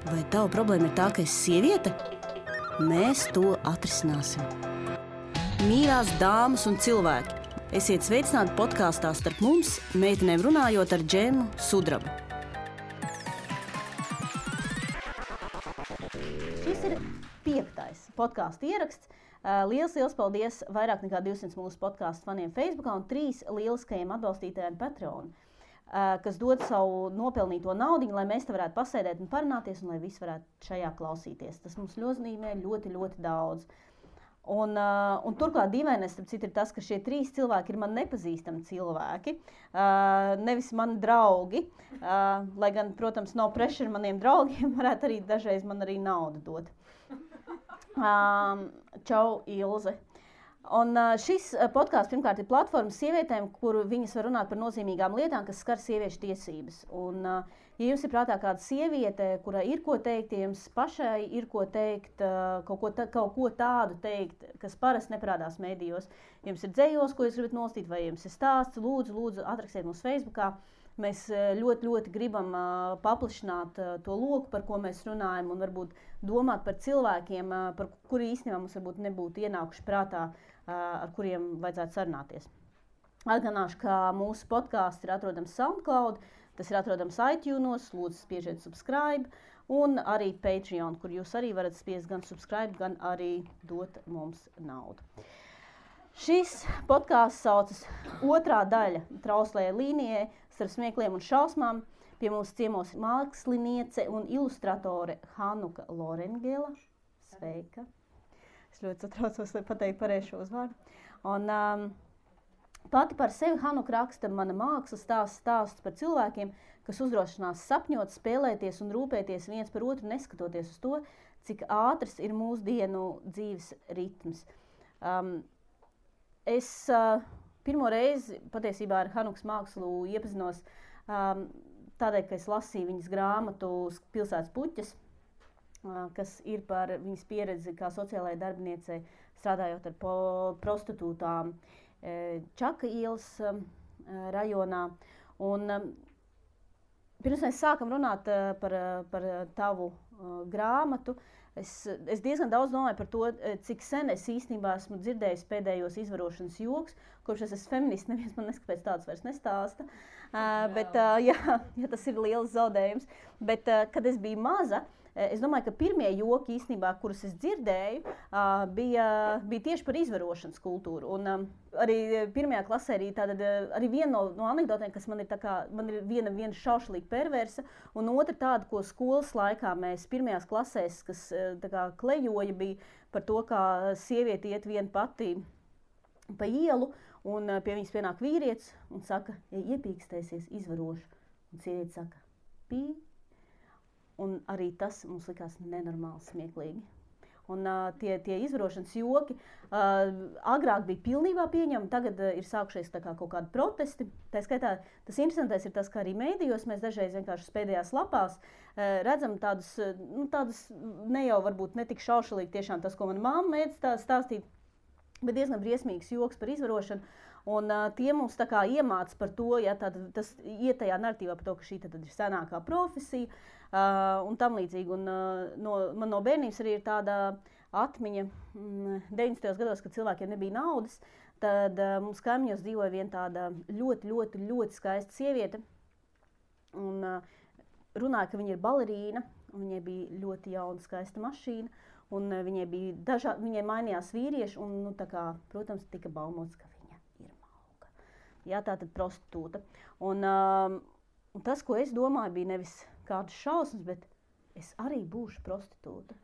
Vai tava problēma ir tā, ka esi sieviete? Mēs to atrisināsim. Mīļās dāmas un cilvēki, esiet sveicināti podkāstā Starp mums, meitenēm runājot ar Džemu Sudrabu. Šis ir 5. podkāstu ieraksts. Liels paldies vairāk nekā 200 mūsu podkāstu faniem Facebookā un 3 lieliskajiem atbalstītājiem Patreon, kas dod savu nopelnīto naudiņu, lai mēs te varētu pasēdēt un parunāties, un lai visi varētu šajā klausīties. Tas mums nozīmē ļoti daudz. Un turklāt dīvainais, starp citu, ir tas, ka šie 3 cilvēki ir man nepazīstami cilvēki, nevis mani draugi, lai gan, protams, no pressure maniem draugiem varētu arī dažreiz man arī naudu dot. Čau, Ilze! Un šis podkāsts pirmkārt ir platforma sievietēm, kur viņas var runāt par nozīmīgām lietām, kas skar sieviešu tiesības. Un, ja jums ir prātā kāda sieviete, kurai ir ko teikt, ja jums pašai ir ko teikt, kaut ko tādu teikt, kas parasti neparādās mēdījos, ja jums ir dzejos, ko jūs gribat nostīt, vai jums ir stāsts, lūdzu, atrakstiet mums Facebookā. Mēs ļoti gribam paplašināt to loku, par ko mēs runājam, un varbūt domāt par cilvēkiem, par kuri īstenībā mums varbūt nebūtu ienākuši prātā, ar kuriem vajadzētu sarunāties. Atgādināšu, ka mūsu podkāsts ir atrodams SoundCloud, tas ir atrodams iTunes, lūdzu spiežiet subscribe, un arī Patreon, kur jūs arī varat spiest gan subscribe, gan arī dot mums naudu. Šis podkāsts saucas otrā daļa trauslajai līnijai starp smiekliem un šausmām. Pie mums ciemos māksliniece un ilustratore Hanuka Lorengela. Sveika! Es ļoti satraucos, lai pateiktu pareizi šo uzvārdu. Un pati par sevi Hanuka raksta mana mākslas stāsts par cilvēkiem, kas uzdrošinās sapņot, spēlēties un rūpēties viens par otru, neskatoties uz to, cik ātrs ir mūsdienu dzīves ritms. Es pirmo reizi patiesībā ar Hanukas mākslu iepazinos tādēļ, ka es lasīju viņas grāmatu Pilsētas puķes, kas ir par viņas pieredzi kā sociālajai darbiniecei, strādājot ar prostitūtām Čaka ielas rajonā. Un pirms mēs sākam runāt par tavu grāmatu, es diezgan daudz domāju par to, cik sen es īstenībā esmu dzirdējis pēdējos izvarošanas joks, kurš es esmu feminists, neviens man neskapēc tāds vairs nestāsta, bet tas ir liels zaudējums. Bet, kad es biju maza, es domāju, ka pirmie joki īstenībā, kurus es dzirdēju, bija tieši par izvarošanas kultūru. Un arī pirmajā klasē arī viena no anekdotēm, kas man ir viena šaušalīga perversa, un otra tāda, ko skolas laikā mēs pirmajās klasēs, kas klejoja, bija par to, kā sieviete iet viena pati pa ielu, un pie viņas pienāk vīrietis un saka, ja iepīkstēsies, izvarošu. Un sieviete saka, pī. Un arī tas mums likās nenormāli smieklīgi. Un tie izvarošanas joki agrāk bija pilnībā pieņemami, tagad ir sākušies kaut kādi protesti. Tā skaitā, tas interesantais ir tas, ka arī mēdījos mēs dažreiz vienkārši pēdējās lapās redzam tādus ne jau varbūt netik šaušalīgi tiešām tas, ko mana mamma mēdz stāstīt, bet diezgan briesmīgs joks par izvarošanu. Un tie mums iemāca par to, tas iet tajā narratīvā par to, ka šī tad ir senākā profesija un tam līdzīgi. Un man no bērnības arī ir tāda atmiņa 90. gados, kad cilvēkiem nebija naudas, tad mums kaimiņos dzīvoja viena tāda ļoti skaista sieviete. Un runāja, ka viņa ir balerīna, un viņai bija ļoti jauna skaista mašīna, un viņai mainījās vīrieši, un protams, tika baumots, ka jā, tātad prostitūta. Un tas, ko es domāju, bija nevis kādas šausmas, bet es arī būšu prostitūta.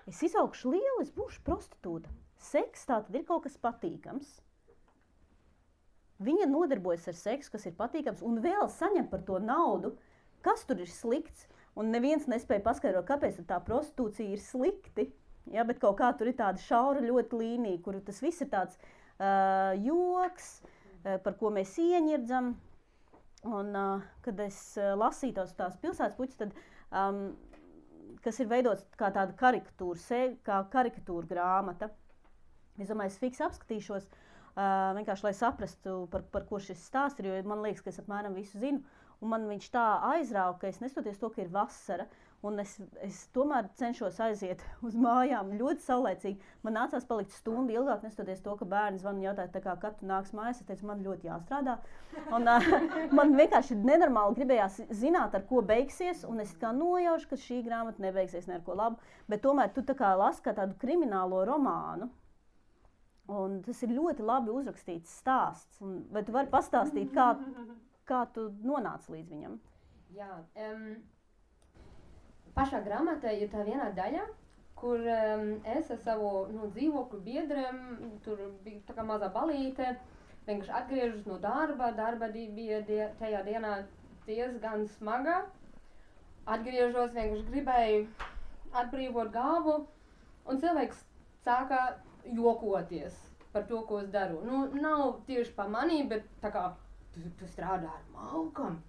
Es izaugšu liela, es būšu prostitūta. Seks tātad ir kaut kas patīkams. Viņa nodarbojas ar seksu, kas ir patīkams, un vēl saņem par to naudu. Kas tur ir slikts? Un neviens nespēja paskaidrot, kāpēc tā prostitūcija ir slikti. Ja, bet kaut kā tur ir tāda šaura ļoti līnija, kur tas viss ir tāds joks, par ko mēs ieņirdzam. Un, kad es lasīju tās pilsētas puķes, tad, kas ir veidots kā tāda karikatūra grāmata, es domāju, es fiks apskatīšos, vienkārši, lai saprastu, par ko šis stāsts ir, jo man liekas, ka es apmēram visu zinu. un man viņš tā aizrauga, ka es nestoties to, ka ir vasara, un es tomēr cenšos aiziet uz mājām ļoti saulēcīgi. Man nācās palikt stundu ilgāk, nestoties to, ka bērni zvan un jautāja, tā kā, kad tu nāks mājās. Es teicu, man ļoti jāstrādā. Un, man vienkārši nenormāli gribējās zināt, ar ko beigsies, un es kā nojaušu, ka šī grāmata nebeigsies ne ar ko labu. Bet tomēr tu tā kā lasi kā tādu kriminālo romānu. Un tas ir ļoti labi uzrakstīts stāsts. Vai tu vari pastāstīt, kā tu nonāci līdz viņam? Jā, pašā grāmatā ir tā viena daļa, kur es ar savu dzīvokļu biedriem, tur bija tā kā mazā balīte, vienkārši atgriežos no darba bija tajā dienā diezgan smaga. Atgriežos, vienkārši gribēju atbrīvot galvu, un cilvēks sāka jokoties par to, ko es daru. Nav tieši pa manī, bet tā kā tu strādā ar Malkam.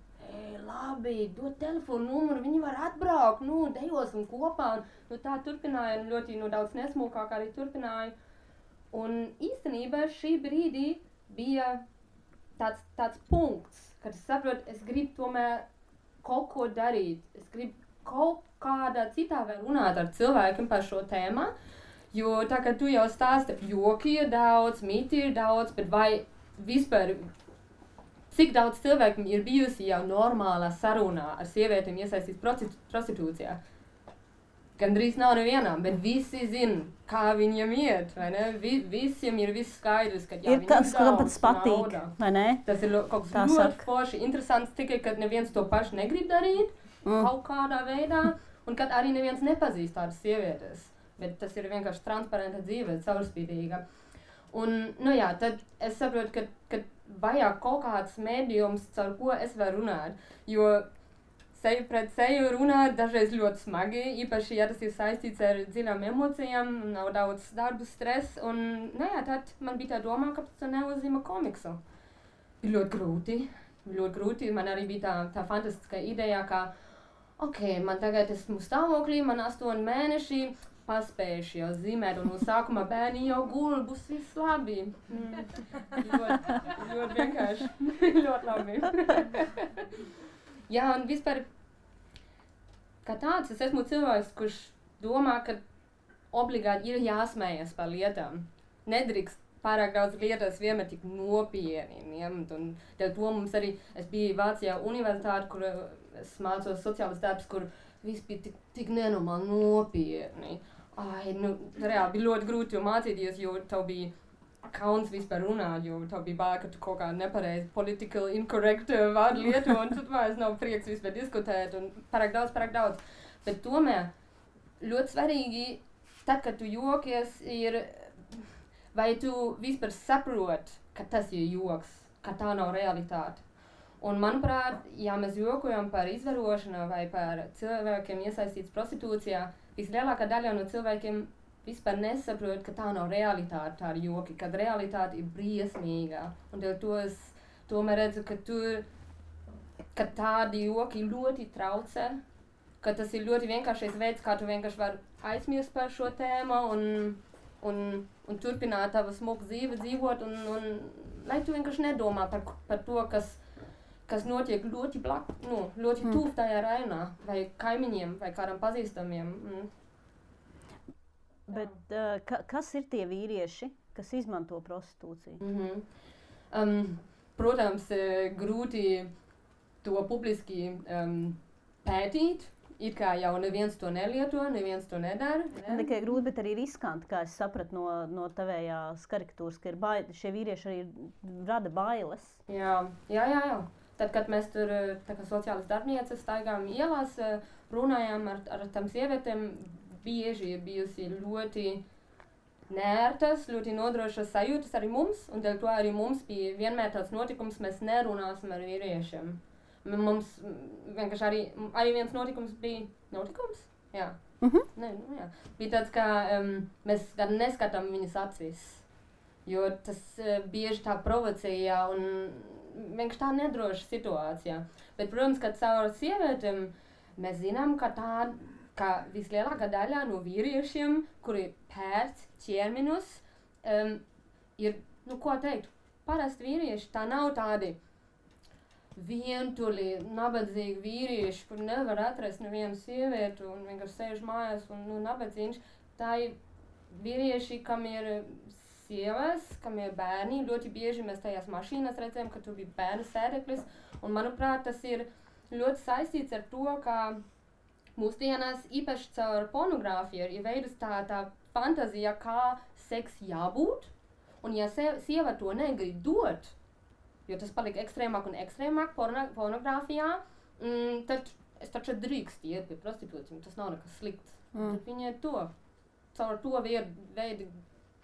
Labi, dod telefonu numuru, viņi var atbraukt, dejosim kopā. Tā turpināja, ļoti daudz nesmukāk arī turpināja. Un īstenībā šī brīdī bija tāds punkts, kad es saprotu, es gribu tomēr kaut ko darīt. Es gribu kaut kādā citā vēl runāt ar cilvēkiem par šo tēmu. Jo tā kā tu jau stāsti, joki ir daudz, mīti ir daudz, bet vai vispār cik daudz cilvēkiem ir bijusi jau normālā sarunā ar sievietēm iesaistīts prostitūcijā? Gandrīz nav nevienām, bet visi zina, kā viņiem iet, vai ne? Visiem ir viss skaidrs, ka ir kāds, kam pats patīk, vai ne? Tas ir kaut kas ļoti forši, interesants, tikai, kad neviens to pašu negrib darīt kaut kādā veidā, un kad arī neviens nepazīst tādas sievietes, bet tas ir vienkārši transparenta dzīve, caurspīdīga. Un, tad es saprotu, ka vajag kaut kāds mēdījums, caur ko es varu runāt, jo seju pret seju runāt dažreiz ļoti smagi, īpaši, ja tas ir saistīts ar dziļām emocijām, nav daudz darbu, stress, un, tad man bija tā domā, ka tas neuzzīmē komiksu. Bija ļoti grūti, man arī bija tā fantastiska ideja, ka, man tagad esmu stāvoklī, man 8 mēneši, paspējuši jau zīmēt, un no sākuma bērni jau gul, būs viss labi. Ļoti vienkārši. Ļoti labi. Jā, un vispār, kā tāds, es esmu cilvēks, kurš domā, ka obligāti ir jāsmējas par lietām. Nedrīkst pārāk daudz lietas vienmēr tik nopietni ņemt, un dēļ to mums arī, es biju Vācijā universitāte, kur es mācos sociālas darbs, kur viss bija tik nenormāli nopietni. Reāli bija ļoti grūti mācīties, jo tev bija kauns vispār runāt, jo tev bija bail, ka tu kaut kā nepareizi political incorrect vārdu lietu, un tu vairs nav prieks vispār diskutēt, un pārāk daudz. Bet tomēr ļoti svarīgi, tad, kad tu jokies, ir, vai tu vispār saprot, ka tas ir joks, ka tā nav realitāte. Un, manuprāt, ja mēs jokojam par izvarošanu vai par cilvēkiem iesaistīts prostitūcijā, vislielākā daļa no cilvēkiem vispār nesaprot, ka tā nav realitāte, tā ir joki, kad realitāte ir briesmīga. Un dēļ to es tomēr redzu, ka tādi joki ļoti traucē, ka tas ir ļoti vienkāršais veids, kā tu vienkārši vari aizmirst par šo tēmu un turpināt tavu smuku dzīvi dzīvot, un lai tu vienkārši nedomā par to, kas notiek ļoti ļoti tuvu tajā rajonā, vai kaimiņiem, vai kādam pazīstamiem. Bet kas ir tie vīrieši, kas izmanto prostitūciju? Protams, grūti to publiski pētīt, it kā jau neviens to nelieto, neviens to nedara. Ne tikai grūti, bet arī riskanti, kā es sapratu no tavējās karikatūras, ka šie vīrieši arī rada bailes. Jā. Tad, kad mēs tur, tā kā sociālas darbnieces, staigājām ielās, runājām ar tām sievietēm, bieži ir bijusi ļoti neērtas, ļoti nodrošas sajūtas arī mums, un dēļ to arī mums bija vienmēr tāds notikums, mēs nerunāsim ar vīriešiem. Mums vienkārši arī viens notikums bija notikums? Jā. Jā. Bija tāds, ka mēs neskatām viņas acīs, jo tas bieži tā provocēja un vienkārši tā nedroša situācija. Bet, protams, ka caur sievietēm mēs zinām, ka vislielākā daļa no vīriešiem, kuri pērc ķermeņus, ir, ko teikt, parasti vīrieši, tā nav tādi vientuļi, nabadzīgi vīrieši, kur nevar atrast nevienu sievietu un vienkārši sēž mājās un nabadzīgs. Tā ir vīrieši, kam ir sievas, kam ir bērni. Ļoti bieži mēs tajās mašīnās redzējām, ka tur bija bērnu sēdeklis. Un, manuprāt, tas ir ļoti saistīts ar to, ka mūsdienās īpaši caur pornogrāfiju ir veidus tā fantazija, kā seks jābūt. Un ja sieva to negrib dot, jo tas palika ekstrēmāk un ekstrēmāk pornogrāfijā, tad es taču drīkst iet pie prostitūcijiem, tas nav nekas slikts. Tad viņi caur to veidu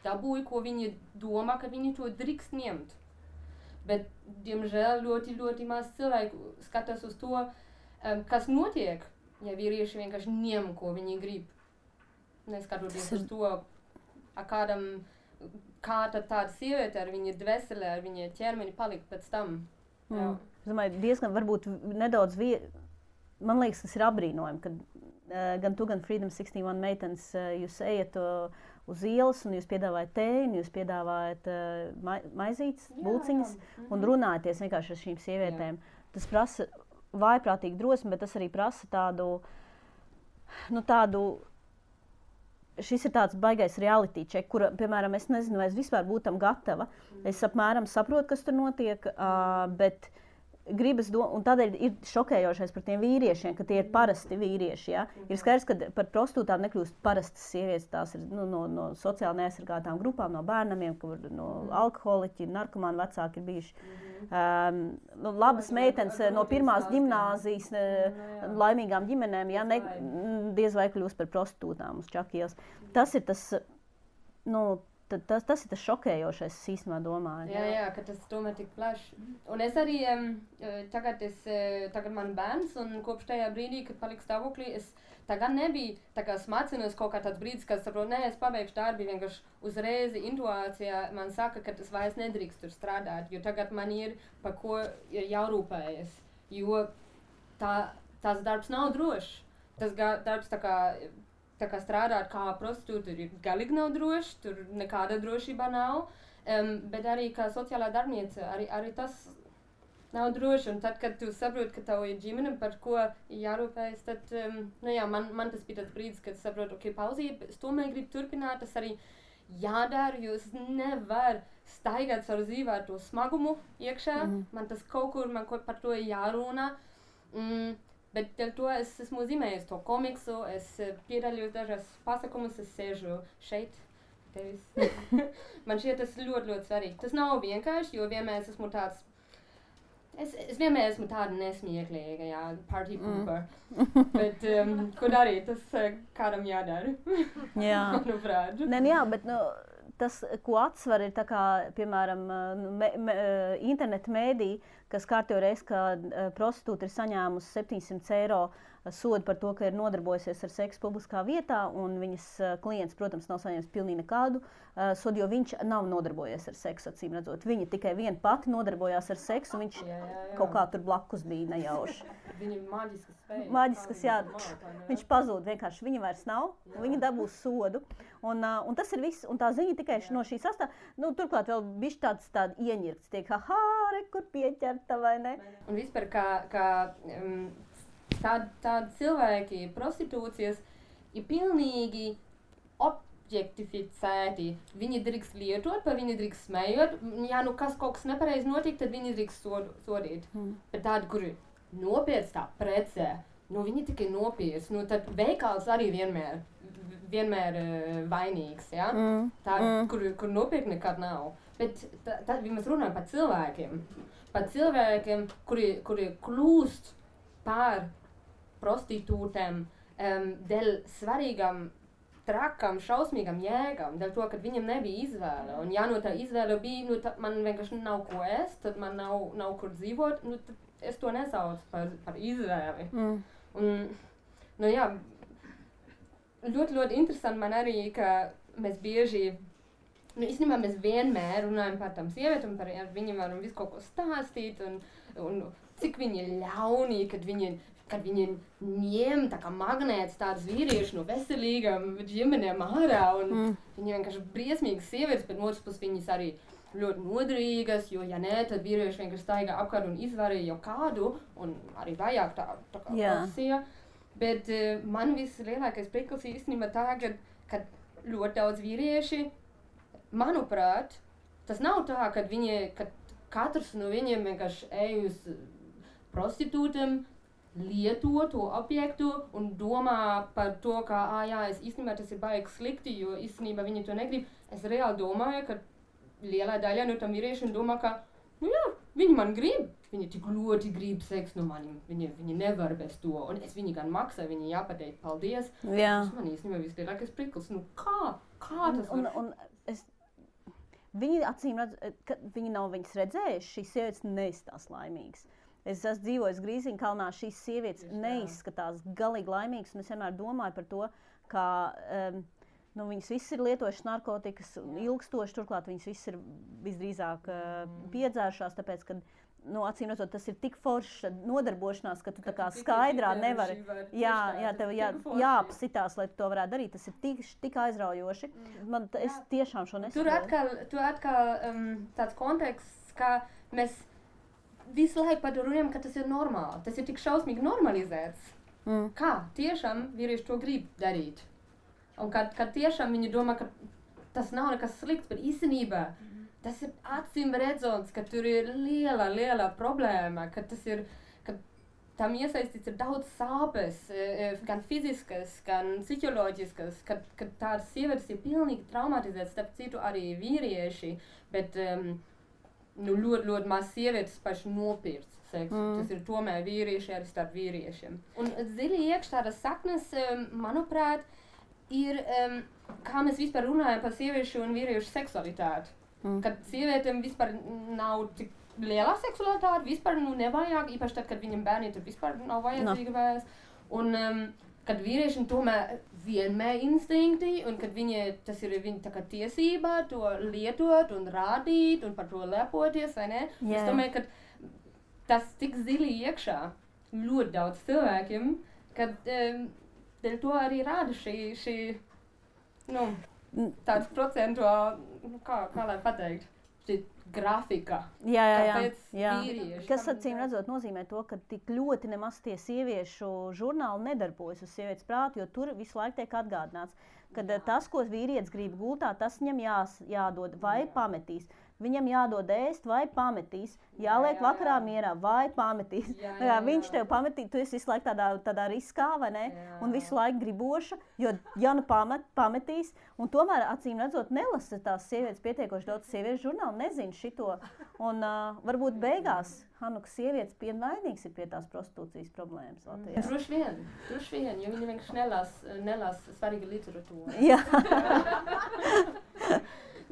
dabūja, ko viņi domā, ka viņi to drīkst ņemt. Bet, diemžēl, ļoti, ļoti maz cilvēku skatās uz to, kas notiek, ja vīrieši vienkārši ņem, ko viņi grib. Neskatoties uz to, kā tad tāda sieviete ar viņa dvēseli, ar viņa ķermeni palika pēc tam. Es domāju, diezgan varbūt nedaudz man liekas, tas ir apbrīnojami, ka gan tu, gan Freedom 61 meitenes, jūs ejat uz ielas un jūs piedāvājat tēju, jūs piedāvājat maizītes, bulciņas un runājaties vienkārši ar šīm sievietēm. Tas prasa vājprātīgu drosmi, bet tas arī prasa tādu šis ir tāds baigais reality check, kura, piemēram, es nezinu, vai es vispār būtu tam gatava. Es apmēram saprotu, kas tur notiek, bet gribas un tādēļ ir šokējošais par tiem vīriešiem, ka tie ir parasti vīrieši. Ja? Ir skaidrs, ka par prostitūtām nekļūst parastas sievietes, tās ir no sociāli neaizsargātām grupām, no bērnamiem, no alkoholiķi, narkomāni vecāki ir bijuši. Labas meitenes no pirmās ģimnāzijas, laimīgām ģimenēm, ja, diez vai kļūst par prostitūtām uz Čakielas. Tas ir tas, tas ir tas šokējošais, es īstenībā domāju. Jā, ka tas tomēr tik plaši. Un es arī, tagad man bērns, un kopš tajā brīdī, kad paliku stāvoklī, es tagad nebija tā kā smacinos kaut kā tāds brīdis, kad saprotu, es pabeigšu darbi, vienkārši uzreiz intuācijā man saka, ka tas vairs nedrīkst tur strādāt, jo tagad man ir par ko ir jārūpējas, jo tās darbs nav drošs. Tas darbs tā kā strādāt kā prostitūta ir galīgi nav droši, tur nekāda drošība nav, bet arī kā sociālā darbniece, arī tas nav droši. Un tad, kad tu saproti, ka tev ir ģimene, par ko jārūpējas, tad, man tas bija tāds brīdis, kad saprotu, pauzīt, es tomēr gribu turpināt, tas arī jādara, jo es nevaru staigāt savu dzīvē ar to smagumu iekšā, man tas kaut kur par to jārunā. Bet dēļ to es esmu zīmējis to komiksu, es piedaļos dažās pasākumus, es sēžu šeit, tevis. Man šķiet tas ļoti, ļoti svarīgi. Tas nav vienkārši, jo vienmēr esmu tāds, es vienmēr esmu tāda nesmieklīga, party pooper. Bet, ko darīt, tas kādam jādara. Jā. Manuprāt. Bet tas, ko atsver, ir tā kā, piemēram, interneta mēdī, kas kārtējo reizi, ka prostitūta ir saņēmusi 700 eiro sodu par to, ka ir nodarbojusies ar seksu publiskā vietā, un viņas klients, protams, nav saņēmis pilnīgi nekādu sodu, jo viņš nav nodarbojies ar seksu, acīm redzot. Viņa tikai viena pati nodarbojās ar seksu, un viņš kaut kā tur blakus bija nejauši. Viņa ir maģiskas spējas. Maģiskas, jā. Viņš pazūd vienkārši, viņa vairs nav, viņa dabūs sodu. Un tas ir viss, un tā ziņa tikai no šī sastāv, turklāt vēl bišķi tāda ieņirkts, tiek, kur pieķerta, vai ne? Un vispār, kā tādi cilvēki, prostitūcijas, ir pilnīgi objektificēti. Viņi drīkst lietot, vai viņi drīkst smējot. Ja kaut kas nepareizi notiek, tad viņi drīkst sodīt. Bet tādi, kuri nopietns tā precē, viņi tikai nopietns, tad veikals arī vienmēr vainīgs, ja? Kur nopietni nekad nav. Bet tad mēs runājam par cilvēkiem, kuri kļūst par prostitūtēm dēļ svarīgām, trakām, šausmīgām jēgām, dēļ to, ka viņam nebija izvēle. Un ja tā izvēle bija, tad man vienkārši nav ko ēst, tad man nav kur dzīvot, tad es to nesaucu par izvēli. Un, ļoti, ļoti interesanti man arī, ka mēs bieži, īstenībā mēs vienmēr runājam par tām sievietēm, ar viņiem varam visu kaut ko stāstīt, un cik viņi ir ļauni, kad viņi ņem tā kā magnēts tādas vīrieši no veselīgām ģimenēm ārā, un viņi vienkārši briesmīgas sievietes, bet otrs puses viņas arī ļoti noderīgas, jo, ja nē, tad vīrieši vienkārši staigā apkārt un izvarīja jau kādu, un arī vajag tā kā profesija. Bet man vislielākais prieklis īstenībā tā, ka ļoti daudz vīrieši, manuprāt, tas nav tā, ka katrs no viņiem vienkārši ej uz prostitūtiem, lieto to objektu un domā par to, ka, es īstenībā tas ir baigi slikti, jo īstenībā viņi to negrib. Es reāli domāju, ka lielā daļa no tam vīriešiem domā, ka, viņi man grib. Viņi tik ļoti grib seksu no manim. Viņi nevar bez to. Un es viņi gan maksāju, viņi jāpateikt paldies. Tas man īstenībā vislielākais priklis. Kā tas var? Viņi acīm redz, ka viņi nav viņas redzējuši, šīs sievietes neizskatās laimīgas. Es esmu dzīvojis Grīziņkalnā, šīs sievietes neizskatās galīgi laimīgas, un es vienmēr domāju par to, ka viņas visas ir lietojušas narkotikas ilgstoši, turklāt viņas visas ir visdrīzāk piedzērušās, tāpēc, ka acīm redzot, tas ir tik forša nodarbošanās, ka tu tā kā skaidrā nevari. Tev jāapsitās, lai tu to varētu darīt. Tas ir tik aizraujoši. Es tiešām šo nesaprotu. Tur atkal tāds konteksts, ka mēs visu laiku par to runājam, ka tas ir normāli. Tas ir tik šausmīgi normalizēts. Kā tiešām vīrieši to grib darīt. Un kad tiešām viņi domā, ka tas nav nekas slikts, bet īstenībā tas ir acīm redzams, ka tur ir liela problēma, ka tam iesaistīts ir daudz sāpes, gan fiziskas, gan psiholoģiskas, ka tādas sievietes ir pilnīgi traumatizētas, starp citu arī vīrieši, bet ļoti maz sievietes paši nopirkt seksu. Tas ir tomēr vīrieši arī starp vīriešiem. Un dziļi iekš tādas saknes, manuprāt, ir, kā mēs vispār runājam par sieviešu un vīriešu seksualitāti. Kad sievietēm vispār nav tik liela seksualitāte, vispār nevajag, īpaši tad, kad viņam bērni tur vispār nav vajadzīga vairs. Un kad vīriešiem tomēr vienmēr instinkti, un kad tas ir viņa tā kā tiesība to lietot un rādīt un par to lepoties, vai ne? Es domāju, ka tas tik zili iekšā ļoti daudz cilvēkiem, kad dēļ to arī rāda šī tāds procentuāli, kā lai pateikt, šī grafika. Vīrieši. Kas acīm redzot nozīmē to, ka tik ļoti nemaz tie sieviešu žurnāli nedarbojas uz sievietes prātu, jo tur visu laiku tiek atgādināts, ka tas, ko vīrietis grib gultā, tas viņam jādod vai pametīs. Viņam jādod ēst vai pametīs, jāliek vakarā mierā vai pametīs. Viņš tev pametīs, tu esi visu laiku tādā riskā, vai ne? Un visu laiku griboša, jo ja pametīs, un tomēr acīm redzot nelasa tās sievietes pietiekoši daudz sieviešu žurnālu, nezinu šito. Un varbūt beigās Hanukas sievietes vainīgs ir pie tās prostitūcijas problēmas Latvijā. Droši vien, jo viņi vienkārši nelas svarīgu literatūru.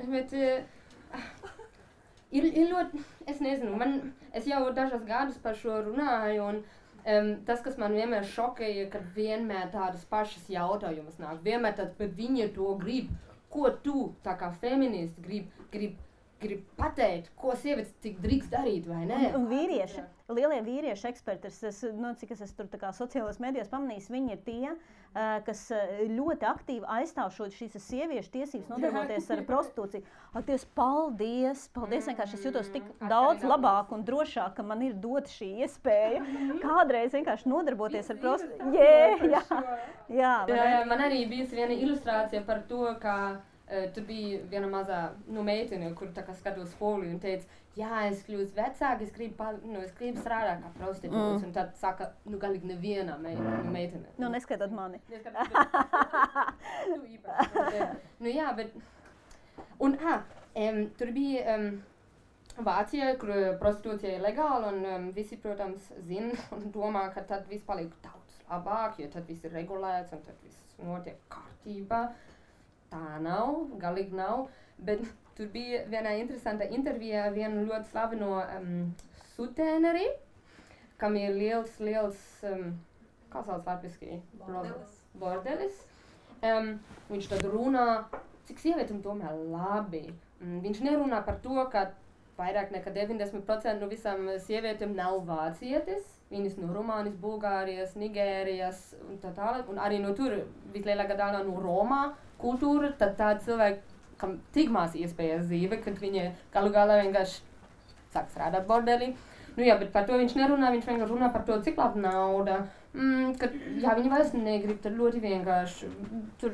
Bet ir ļoti, es nezinu, es jau dažas gadus par šo runāju, un tas, kas man vienmēr šokēja, kad vienmēr tādas pašas jautājumas nāk, vienmēr tad, bet viņi to grib, ko tu, tā kā feministi, grib pateikt, ko sievietes tik drīkst darīt, vai ne? Un vīrieši, lielie vīrieši eksperti, cik es tur tā kā sociālajos medijos pamanījis, viņi ir tie, kas ļoti aktīvi aizstāv šīs sieviešu tiesības nodarboties ar prostitūciju. Dievs, paldies, vienkārši es jūtos tik daudz labāk un drošāk, ka man ir dota šī iespēja kādreiz vienkārši nodarboties ar prostitūciju. Man arī bijusi viena ilustrācija par to, ka tur bija viena mazā meitene, kur tā kā skatos spoli un teica, es kļūstu vecāka, es gribu strādāt kā prostitūts. Un tad saka, galīgi neviena meitene. Neskaitot mani. Tu īpaši. Bet... Un, tur bija Vācija, kur prostitūcija ir legāla, un visi, protams, zina un domā, ka tad viss paliek daudz labāk, jo tad viss ir regulēts un tad viss notiek kārtībā. Tā nav, galīgi nav, bet tur bija viena interesanta intervija vienu ļoti slaveno sutēneri, kam ir liels, kā sauc latviski? Bordelis. Viņš tad runā, cik sievietēm tomēr labi. Viņš nerunā par to, ka vairāk nekā 90% no visām sievietēm nav vācietes. Viņas no Rumānijas, Bulgārijas, Nigērijas un tā tālāk. Un arī no tur vislielākā daļa no Romā kultūra, tad tādi cilvēki kam tik maz iespējas dzīve, kad viņa galu galā vienkārši sāk strādāt bordelī. Nu jā, bet par to viņš nerunā, viņš vienkārši runā par to, cik labi nauda, kad, jā, viņi vairs negrib, tad ļoti vienkārši, tur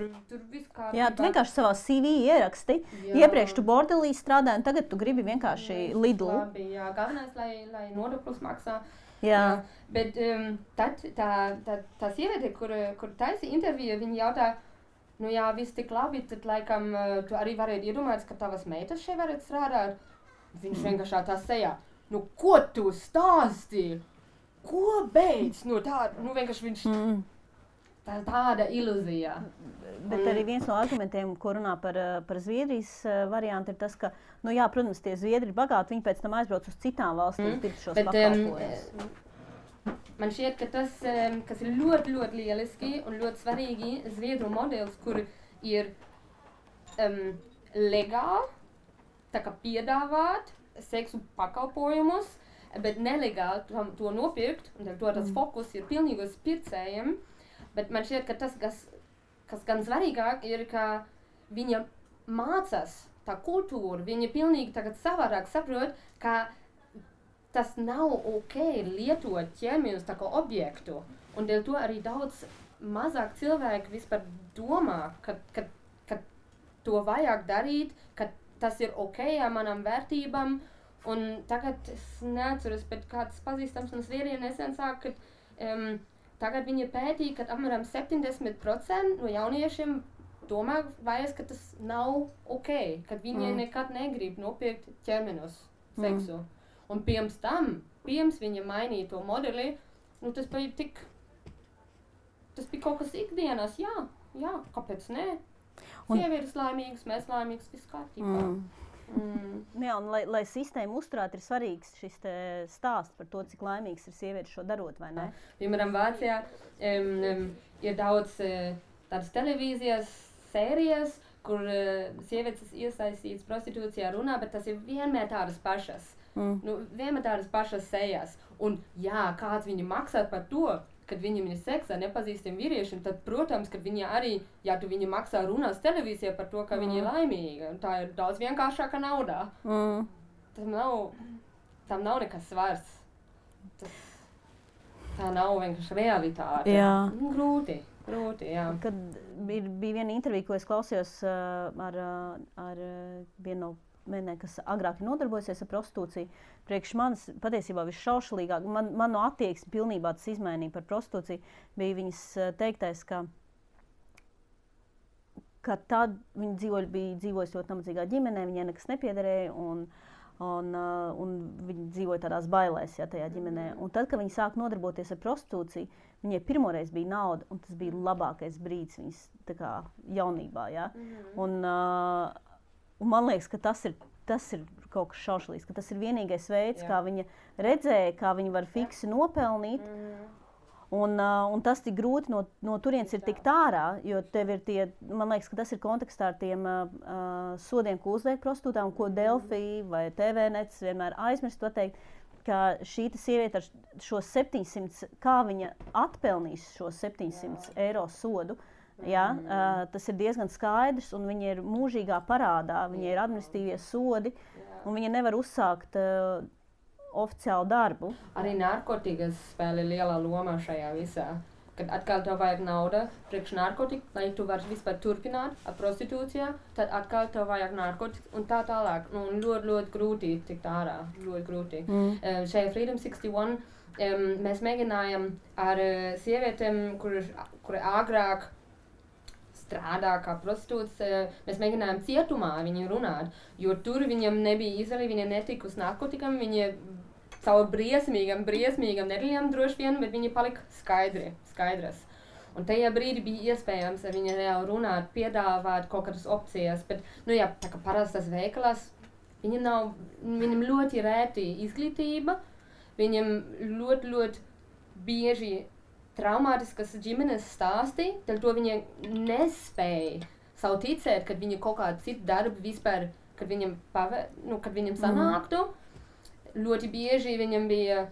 viss kā... Jā, tu vienkārši savā CV ieraksti, iepriekš tu bordelī strādāji, un tagad tu gribi vienkārši Lidlu. Labi, jā, galvenais, lai nodokļus maksā. Jā. Bet tad tā sieviete, kur taisa interviju, viņa jautā, nu jā, viss tik labi, tad laikam tu arī varētu iedomāties, ka tavas meitas šeit varētu strādāt. Viņš vienkārši tā sejā. Nu, ko tu stāsti? Ko beidz? Nu, vienkārši viņš... Tāda ilūzija. Bet arī viens no argumentiem, ko runā par Zviedrijas variantu, ir tas, ka, nu jā, protams, tie Zviedri ir bagāti, viņi pēc tam aizbrauc uz citām valstīm, pirkt šos pakalpojumus. Man šķiet, ka tas, kas ir ļoti, ļoti lieliski un ļoti svarīgi, Zviedru modelis, kur ir legāli, tā kā piedāvāt seksu pakalpojumus, bet nelegāli to nopirkt, un to tas fokus ir pilnīgi uz pircējiem. Bet man šķiet, ka tas, kas gan svarīgāk, ir, ka viņa mācās tā kultūra, viņa pilnīgi tagad savādāk saprot, ka tas nav ok lietot ķermeņus tā kā objektu. Un dēļ to arī daudz mazāk cilvēki vispār domā, ka to vajag darīt, ka tas ir ok ar manām vērtībām, un tagad es neatceros, bet kāds pazīstams un Zviedrijā nesen sāk, ka tagad viņi pētīja, ka apmēram 70% no jauniešiem domā vairs, ka tas nav ok, ka viņi nekad negrib nopirkt ķermeņus seksu. Un pirms viņa mainīja to modeli, nu tas bija kaut kas ikdienas, jā, kāpēc ne? Sievietes laimīgas, mēs laimīgas, viss kārtībā. Jā, un lai sistēmu uzturētu, ir svarīgs šis stāsts par to, cik laimīgs ir sievietes šo darot, vai ne? Piemēram, Vācijā ir daudz tādas televīzijas sērijas, kur sievietes iesaistītas prostitūcijā runā, bet tas ir vienmēr tādas pašas. Nu, vienmēr tādas pašas sejas. Un jā, kāds viņi maksā par to, kad viņam ir seksā nepazīstiem vīriešiem, tad, protams, kad viņi arī, ja tu viņi maksā runās televīzijā par to, ka viņi ir laimīgi, un tā ir daudz vienkāršāka naudā. Tam nav nekas svars. Tā nav vienkārši realitāte. Jā. Grūti, jā. Kad bija viena intervija, ko es klausījos ar vienu no mēnē, kas agrāk ir nodarbojasies ar prostitūciju. Priekš manis patiesībā visšaušalīgāk, man no attieksmi pilnībā tas izmainīja par prostitūciju, bija viņas teiktais, ka tad viņa dzīvojas ļoti nabadzīgā ģimenē, viņai nekas nepiederēja, un viņa dzīvoja tādās bailēs, tajā ģimenē. Un tad, kad viņa sāk nodarboties ar prostitūciju, viņai pirmoreiz bija nauda, un tas bija labākais brīdis viņas tā kā jaunībā, jā. Un man liekas, ka tas ir kaut kas šaušalīgs, ka tas ir vienīgais veids, kā viņa redzēja, kā viņa var fiksi nopelnīt. Un tas tik grūti no turienes ir tikt ārā, jo tev ir tie, man liekas, ka tas ir kontekstā ar tiem sodiem, ko uzliek prostitūtām, ko Delfi vai TVNets vienmēr aizmirst pateikt, ka šī sieviete ar šo 700, kā viņa atpelnīs šo 700 eiro sodu. Ja, tas ir diezgan skaidrs, un viņa ir mūžīgā parādā, viņai ir administratīvie sodi, un viņa nevar uzsākt oficiālu darbu. Arī narkotikas spēlē lielā lomā šajā visā. Kad atkal tev vajag nauda priekš narkotika, lai tu vari vispār turpināt ar prostitūcijā, tad atkal tev vajag narkotika un tā tālāk. Un ļoti grūti tikt ārā, ļoti grūti. Šajā Freedom 61 mēs mēģinājām ar sievietēm, kuri agrāk strādā kā prostitūts, mēs mēģinājām cietumā viņiem runāt, jo tur viņam nebija izvēle, viņa netika uz narkotikam, viņa caur briesmīgam nedēļām droši vien, bet viņa palika skaidras. Un tajā brīdī bija iespējams ar viņu reāli runāt, piedāvāt kaut kādas opcijas, bet, tā kā parastas veikalās, viņam ļoti rēti izglītība, viņam ļoti bieži traumātiskas ģimenes stāsti, tad to viņa nespēja savu ticēt, kad viņa kaut kādu citu darbu vispār, kad viņam sanāktu. Ļoti bieži viņam bija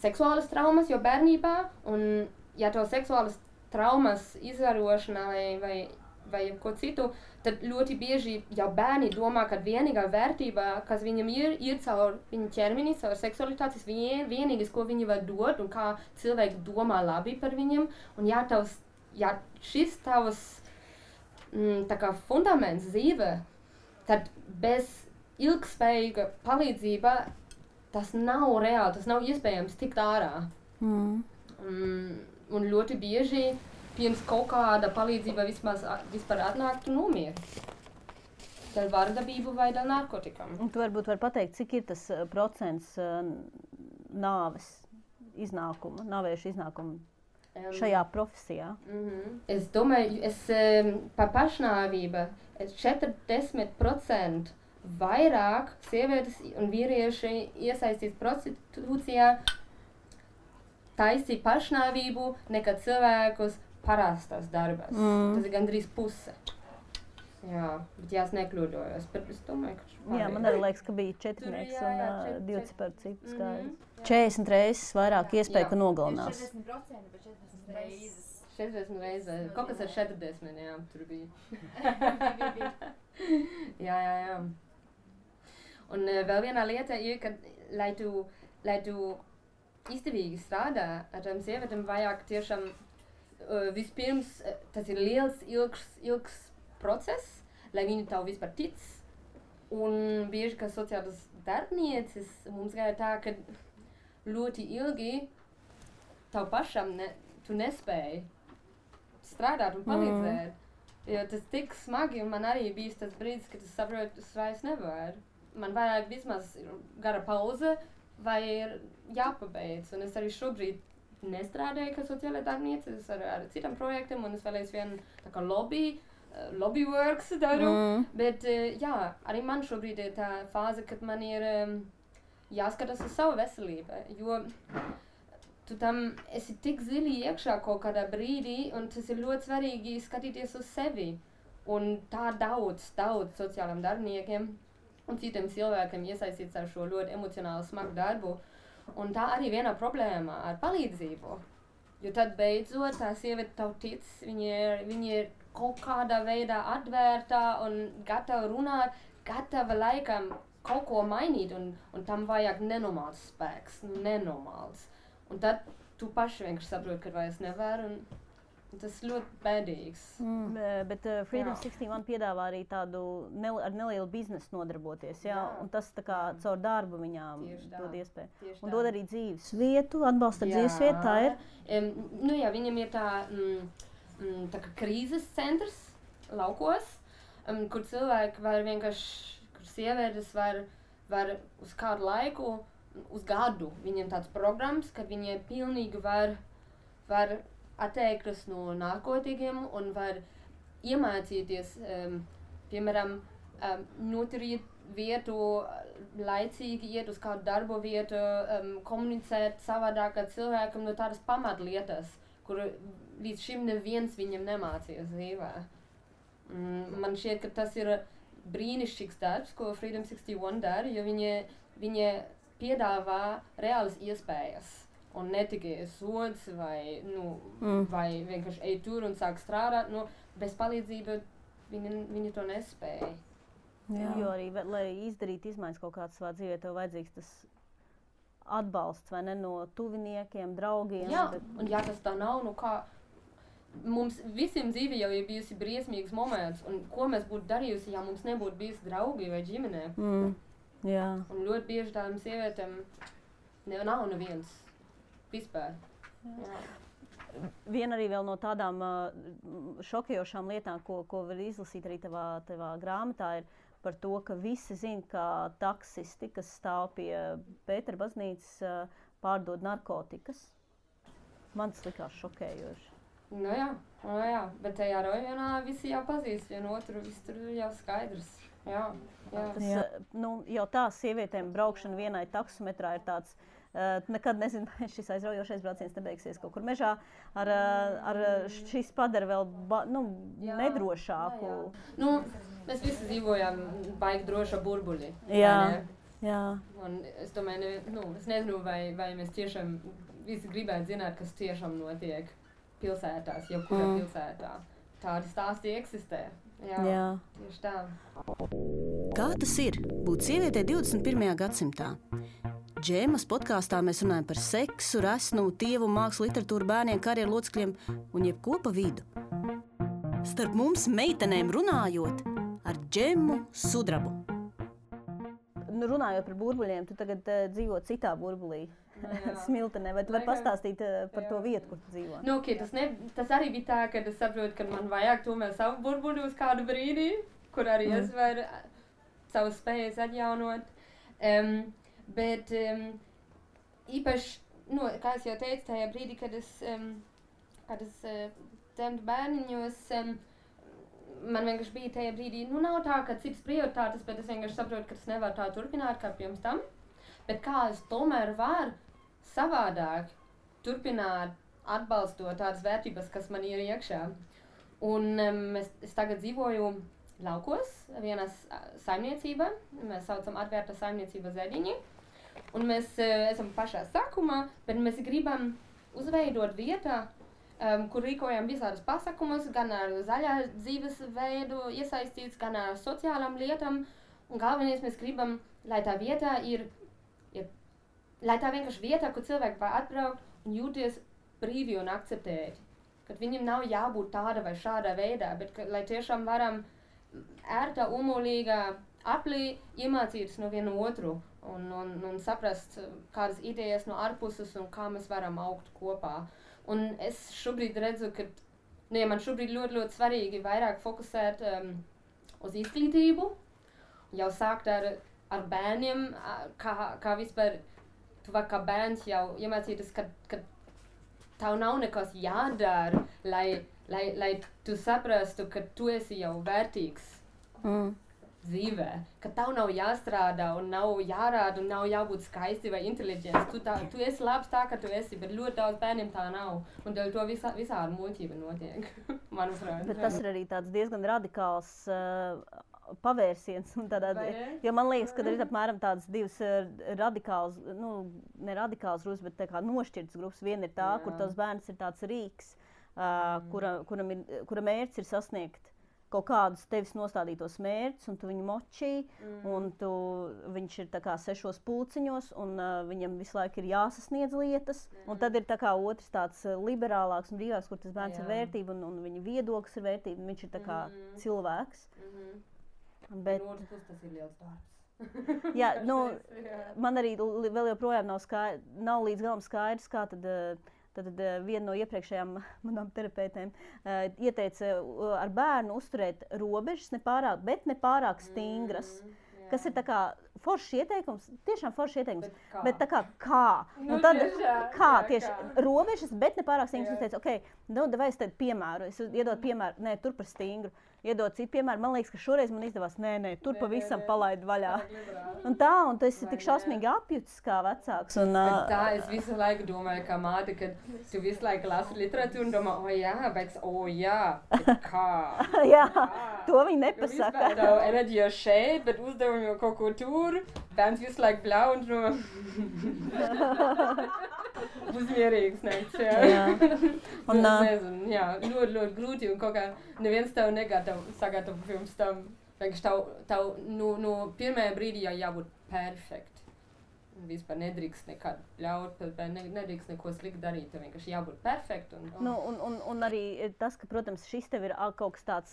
seksuālas traumas jau bērnībā, un ja to seksuālas traumas izvarošanā vai vai ko citu, tad ļoti bieži jau bērni domā, ka vienīgā vērtība, kas viņam ir caur viņa ķermeni, caur seksualitātes, vienīgais, ko viņi var dot un kā cilvēki domā labi par viņam. Un ja šis tavs tā kā fundaments dzīve, tad bez ilgspējīga palīdzība tas nav reāli, tas nav iespējams tikt ārā. Un ļoti bieži pirms kaut kāda palīdzība vispār atnāk, tu nomieris. Dēļ vardarbību vai dēļ narkotikām. Un tu varbūt var pateikt, cik ir tas procents nāvēšu iznākumu šajā profesijā? Es domāju, par pašnāvību 40% vairāk sievietes un vīrieši iesaistīts prostitūcijā taisīja pašnāvību nekā cilvēkus parastās darbas. Tas ir gandrīz puse. Jā, bet es nekļūdojos, bet es domāju, ka Jā, man arī liekas, ka bija 4 un 2 par citu skaidrs. 40 reizes vairāk iespēju, ka nogalinās. 40%, bet 40 reizes. 40 reizes. Kaut kas ar 40, jā, tur bija. Jā. Un vēl viena lieta ir, ka, lai tu izdevīgi strādā ar tām sievietēm, vajag tiešām vispirms, tas ir liels, ilgs process, lai viņi tev vispār tic. Un bieži, ka sociālas darbnieces mums gāja tā, ka ļoti ilgi tev pašam tu nespēji strādāt un palīdzēt. Jo tas tik smagi, un man arī bijis tas brīdis, kad es saprotu, es vairs nevaru. Man vajag vismaz gara pauze, vai ir jāpabeidz. Un es arī šobrīd nestrādāju kā sociālā darbniece, es ar citām projektiem, un es vēl aizvien tā kā lobby works daru. Bet jā, arī man šobrīd ir tā fāze, kad man ir jāskatās uz savu veselību, jo tu tam esi tik zili iekšā kaut kādā brīdī, un tas ir ļoti svarīgi skatīties uz sevi. Un tā daudz sociālām darbiniekiem un citiem cilvēkiem iesaistīts ar šo ļoti emocionāli smagu darbu. Un tā arī viena problēma ar palīdzību. Jo tad beidzot tā sieviete tev tic, viņa ir kaut kādā veidā atvērta un gatava runāt, gatava laikam kaut ko mainīt, un tam vajag nenormāls spēks, nenormāls. Un tad tu paši vienkārši saproti, ka vairs nevar, un tas ļoti bēdīgs. Bet Freedom 61 piedāvā arī tādu ar nelielu biznesu nodarboties, jā? Un tas tā kā caur darbu viņām dod iespēju. Un dod arī dzīves vietu, atbalsta dzīves vietu, tā ir? Nu jā, viņam ir tā kā krīzes centrs laukos, kur cilvēki var vienkārši, kur sievietes var uz kādu laiku, uz gadu, viņiem tāds programmas, kad viņi pilnīgi var atteikties no narkotikiem un var iemācīties, piemēram, noturēt vietu, laicīgi iet uz kādu darbu vietu, komunicēt savādāk ar cilvēkiem no tādas pamatlietas, kur līdz šim neviens viņam nemācījās dzīvē. Man šķiet, ka tas ir brīnišķīgs darbs, ko Freedom 61 dara, jo viņi piedāvā reālas iespējas. Un ne tikai sods vai vienkārši ej tur un sāk strādāt. Bez palīdzības viņi to nespēja. Jā. Jo arī, lai izdarītu izmaiņas kaut kādas savā dzīvē, tev vajadzīgs tas atbalsts, vai ne, no tuviniekiem, draugiem. Jā, un ja tas tā nav, kā mums visiem dzīvē jau ir bijusi briesmīgs moments, un ko mēs būtu darījusi, ja mums nebūtu bijusi draugi vai ģimene. Jā. Un ļoti bieži tādām sievietēm nav neviens vispār. Jā. Viena arī vēl no tādām šokējošām lietām, ko var izlasīt arī tavā grāmatā, ir par to, ka visi zina, ka taksisti, kas stāv pie Pētera baznīcas, pārdod narkotikas. Man tas likās šokējoši. Nu jā, bet tajā rajonā visi jau pazīst vienu otru, viss tur jau skaidrs. Jā. Jau tā sievietēm braukšana vienai taksometrā ir tāds, nekad nezinu, šis aizraujošais brauciens nebeigsies kaut kur mežā, šis padara vēl nedrošāku. Mēs visi dzīvojam baigi droša burbuļi. Jā. Un es domāju, es nezinu, vai mēs tiešām visi gribētu zināt, kas tiešām notiek pilsētās, jebkurā pilsētā. tādi stāsti eksistē. Jā. Tieši tā. Kā tas ir būt sievietei 21. gadsimtā? Džēmas podkāstā mēs runājam par seksu, resnumu, tievu, mākslu, literatūru, bērniem, karjeru locekļiem un jebko pa vidu. Starp mums meitenēm runājot ar Džemu Sudrabu. Runājot par burbuļiem, tu tagad dzīvo citā burbulī, Smiltenē, vai tu vari pastāstīt par to vietu, kur tu dzīvo? Nu, okay, tas arī bija tā, ka es saprotu, ka man vajag tomēr savu burbuli uz kādu brīdī, kur arī es varu savas spējas atjaunot. Bet īpaši, kā es jau teicu, tajā brīdī, kad es dzemdu bērniņos, man vienkārši bija tajā brīdī, nav tā, ka citas prioritātes, bet es vienkārši saprotu, ka es nevaru tā turpināt kā pirms tam. Bet kā es tomēr varu savādāk turpināt atbalstot tādas vērtības, kas man ir iekšā. Un es tagad dzīvoju laukos, vienā saimniecībā, mēs saucam atvērta saimniecība Zeļiņi. Un mēs esam pašā sākumā, bet mēs gribam uzveidot vietā, kur rīkojam visādas pasākumus, gan ar zaļā dzīvesveidu iesaistīts, gan ar sociālām lietām. Un galvenais mēs gribam, lai tā vietā lai tā vienkārši vietā, kur cilvēki var atbraukt un jūties brīvi un akceptēti. Kad viņam nav jābūt tāda vai šādā veidā, bet lai tiešām varam ērtā, umulīgā aplī iemācīties no vienu otru un saprast kādas idejas no ārpuses un kā mēs varam augt kopā. Un es šobrīd redzu, ka man šobrīd ļoti svarīgi vairāk fokusēt uz izglītību, jau sākt ar bērniem, kā vispār tu vari kā bērns jau iemācīties, ka tev nav nekas jādara, lai tu saprastu, ka tu esi jau vērtīgs dzīvē, ka tev nav jāstrādā un nav jārāda un nav jābūt skaisti vai inteliģents. Tu esi labs tā, ka tu esi, bet ļoti daudz bērniem tā nav. Un dēļ to visādi muļķība notiek, manuprāt. Bet tas ir arī tāds diezgan radikāls pavērsiens. Jo man liekas, ka ir apmēram tādas divas radikāls, ne radikāls grupas, bet tā kā nošķirtas grupas. Viena ir tā, kur tavs bērns ir tāds rīks, kura mērķis ir sasniegt kaut kādus tevis nostādītos mērķus, un tu viņu močī, un viņš ir tā kā 6 pulciņos, un viņam visu laiku ir jāsasniedz lietas. Un tad ir tā kā otrs tāds liberālāks un brīvāks, kur tas bērns ir vērtība, un viņa viedoklis ir vērtība, un viņš ir tā kā cilvēks. Bet no otras puses tas ir liels darbs. Jā, man arī vēl joprojām nav līdz galam skaidrs, kā tad viena no iepriekšējām manām terapeitēm ieteica ar bērnu uzturēt robežas, bet ne pārāk stingras. Kas ir tā kā foršs ieteikums, tiešām foršs ieteikums, bet tā kā? Un tad tieši robežas, bet ne pārāk stingras. Es teicu, vai es tad piemēru, es iedodu piemēru, nē, tur par stingru. Iedod citu piemēru, man liekas, ka šoreiz man izdevās, tur pavisam palaid vaļā. Un tu esi tik šausmīgi apjutis kā vecāks. Tā es visu laiku domāju, kā māte, kad tu visu laiku lasi literatūru un domā, bet kā? Jā, to viņi nepasaka. Tavu enerģiju šeit, bet uzdevumi jau kaut ko tur, bērns visu laiku blau un to uzmierīgs nekts, jā. Un nezinu, ļoti grūti un kaut kā neviens tev sagatavo pirms tam. Vienkārši tev no pirmajā brīdī jau jābūt perfekti. Vispār nedrīkst nekad ļaut, nedrīkst neko slikti darīt, tev vienkārši jābūt perfekti. Un arī tas, ka, protams, šis tev ir kaut kas tāds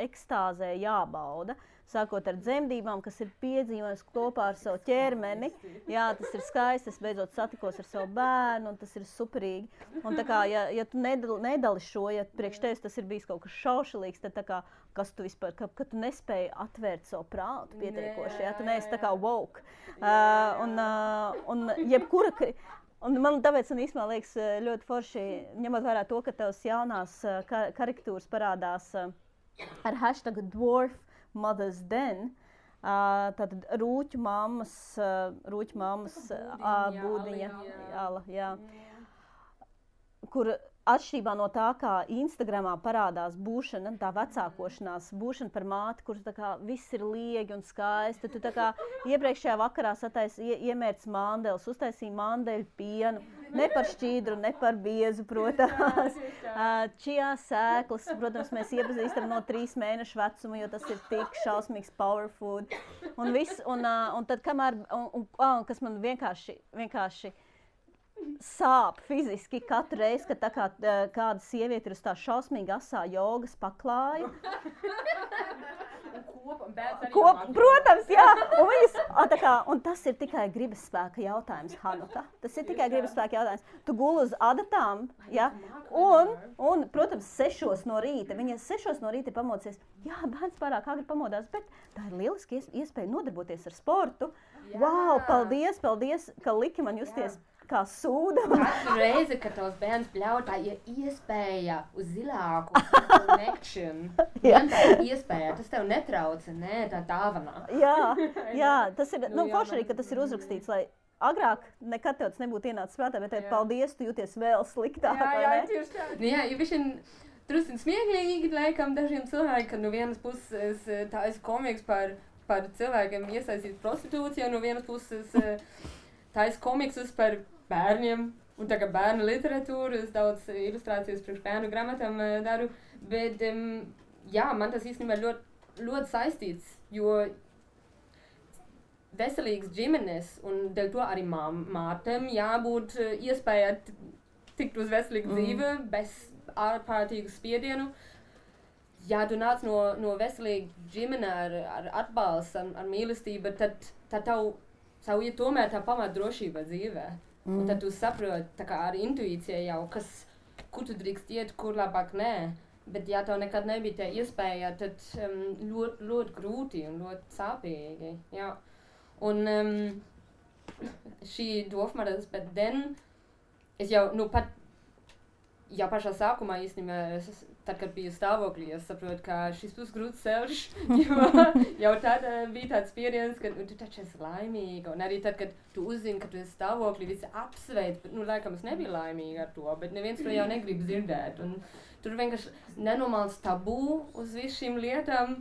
ekstāzē jābauda, sākot ar dzemdībām, kas ir piedzīvojums kopā ar savu ķermeni. Jā, tas ir skaisti, es beidzot satikos ar savu bērnu, un tas ir superīgi. Un tā kā, ja tu nedali šo, ja priekš tevis tas ir bijis kaut kas šaušalīgs, tad tā kā, kas tu vispār, ka tu nespēji atvērt savu prātu pietiekoši, ja tu neesi tā kā woke. Un jebkura... Un man tāpēc īstenībā liekas ļoti forši, ņemot vērā to, ka tavas jaunās karikatūras parādās ar hashtagu Dwarf Mother's Den, tātad rūķu mammas būdiņa, jā, kur atšķirībā no tā, kā Instagramā parādās būšana, tā vecākošanās, būšana par māti, kur tā kā viss ir liegi un skaisti. Tu tā kā iepriekšējā vakarā iemērci mandeles, uztaisīji mandeļu pienu, Ne par šķīdru, ne par biezu, protams. Čijā sēklas, protams, mēs iepazīstam no 3 mēnešu vecuma, jo tas ir tik šausmīgs power food. Un viss, un tad kamēr, un kas man vienkārši sāp fiziski katru reizi, kad tā kā kāda sieviete ir uz tā šausmīgi asā jogas paklāja. Protams, jā. Un tas ir tikai gribas spēka jautājums, Hanuka. Tas ir tikai gribas spēka jautājums. Tu guli uz adatām, ja? Un, protams, 6 no rīta. Viņa 6 no rīta ir pamodies. Jā, bērns pārāk agri pamodās, bet tā ir lieliski iespēja nodarboties ar sportu. Jā. Wow, paldies, ka liki man justies kā sūda. Katru reizi, kad tavs bērns bļauj, tā ir iespēja uz zilāku connection. Tā ir iespēja, tas tev netrauca, ne, tā dāvanā. Jā, tas ir, forši arī, ka tas ir uzrakstīts, lai agrāk nekad tev tas nebūtu ienācis prātā, bet paldies, tu jūties vēl sliktāk, vai ne? Jā, tieši tā. Jā, jo višķiņ drusciņ smieklīgi, laikam, dažiem cilvēkiem, ka no vienas puses tā esi komiks par cilvēkiem iesaistīt prostitūcijā, no vienas puses tā esi komiksus par bērniem, un tā kā bērnu literatūru, es daudz ilustrācijas priekš bērnu grāmatām daru, bet jā, man tas īstenībā ļoti saistīts, jo veselīgas ģimenes, un dēļ to arī mātēm jābūt iespēja tikt uz veselīgu dzīvi, bez ārkārtīgu spiedienu. Ja tu nāc no veselīga ģimene ar atbalstu, ar mīlestību, tad tev ir tomēr tā pamat drošība dzīvē. Un tad tu saproti, tā kā ar intuīciju jau, kur tu drīkst iet, kur labāk nē. Bet ja tev nekad nebija tā iespēja, tad ļoti grūti un ļoti sāpīgi. Jā. Un šī dofmaras, bet es jau, jau pašā sākumā īstenībā, tad, kad biju stāvoklī, es saprotu, ka šis būs grūts ceļš, jo jau tad bija tāds spiediens, ka tu taču esi laimīga, un arī tad, kad tu uzzini, ka tu esi stāvoklī, visi apsveic, bet, laikam es nebiju laimīga ar to, bet neviens to jau negrib dzirdēt, un tur vienkārši nenormāls tabū uz visu šīm lietām,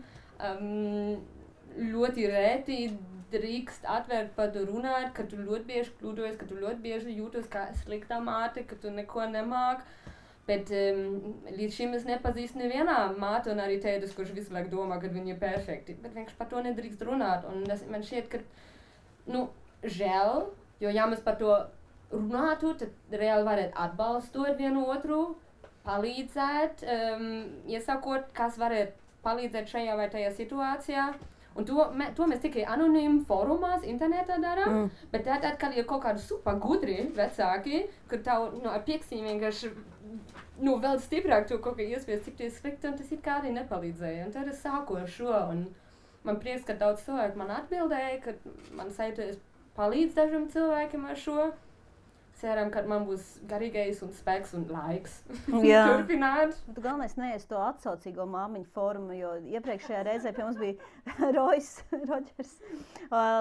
ļoti rēti drīkst atvērt par to runāt, ka tu ļoti bieži kļūdojies, ka tu ļoti bieži jūtos kā sliktā māte, ka tu neko nemāk. Bet līdz šim es nepazīstu nevienā māte un arī tētis, kurš visu laiku domā, ka viņi ir perfekti. Bet vienkārši par to nedrīkst runāt. Un man šķiet, ka, žēl, jo ja mēs par to runātu, tad reāli varētu atbalstot vienu otru, palīdzēt, iesakot, kas varētu palīdzēt šajā vai tajā situācijā. Un to mēs tikai anonīmi fórumās, internetā darām, bet tad, kad ir kaut kādi super gudri vecāki, kur tev ar piekstīm vienkārši vēl stiprāk to kaut kā iespies, cik tie slikti, un tas it kā arī nepalīdzēja. Un tad es sāku ar šo, un man prieks, ka daudz cilvēku man atbildēja, ka man sajūties palīdz dažiem cilvēkiem ar šo. Ceram, ka man būs garīgais un spēks un laiks turpināt. Tu galvenais neies to atsaucīgo māmiņu fórumu, jo iepriekšējā reizē pie mums bija Rodžers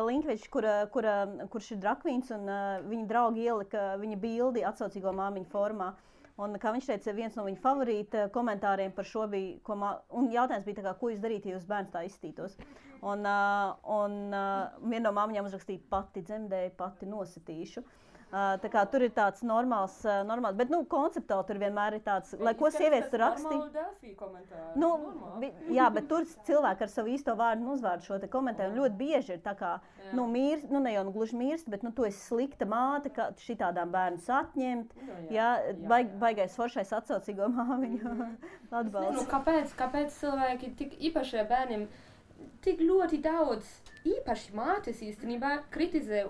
Linkvičs, kurš ir drakvīns, un viņa draugi ielika viņa bildi atsaucīgo māmiņu fórumā. Un, kā viņš teica, viens no viņa favorīta komentāriem par šo bija, un jautājums bija tā kā, ko jūs darītu, ja jūs bērns tā izstītos. Un viena no māmiņām uzrakstīja, pati dzemdēju, pati nositīšu. Tā kā tur ir tāds normāls, bet, konceptuāli tur vienmēr ir tāds, lai ko sievietes tur rakstīja. Jā, bet tur cilvēki ar savu īsto vārdu un uzvārdu šo te komentēju, un ļoti bieži ir tā kā, mīrst, ne jau gluži mirst, bet, tu esi slikta māte, ka šitādām bērnus atņemt, baigais foršais atsaucīgo māmiņu atbalsts. Kāpēc cilvēki tik īpašie bērniem tik ļoti daudz īpaši mātes īstenībā kritizē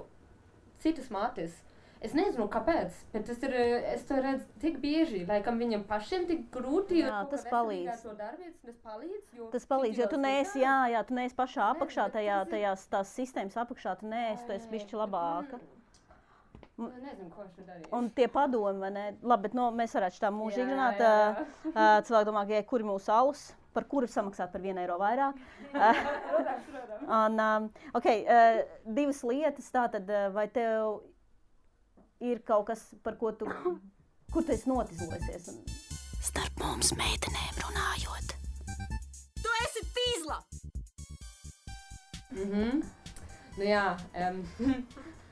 citas mātes? Es nezinu, kāpēc, bet es to redzu tik bieži, laikam viņam pašiem tik grūti, jo tas palīdz. Tas palīdz, jo tu neesi, tu neesi pašā apakšā, tās sistēmas apakšā, tu esi bišķi labāka. Nezinu, ko viņš darīja. Un tie padomi, vai ne? Labi, bet mēs varētu šitā mūžīgi runāt. Cilvēki domā, ka kuri mūsu alus, par kuru samaksāt par 1 eiro vairāk. Divas lietas, tātad, vai tev ir kaut kas, par ko kur tu esi notizlojusies? Starp mums meitenēm runājot. Tu esi tīzla!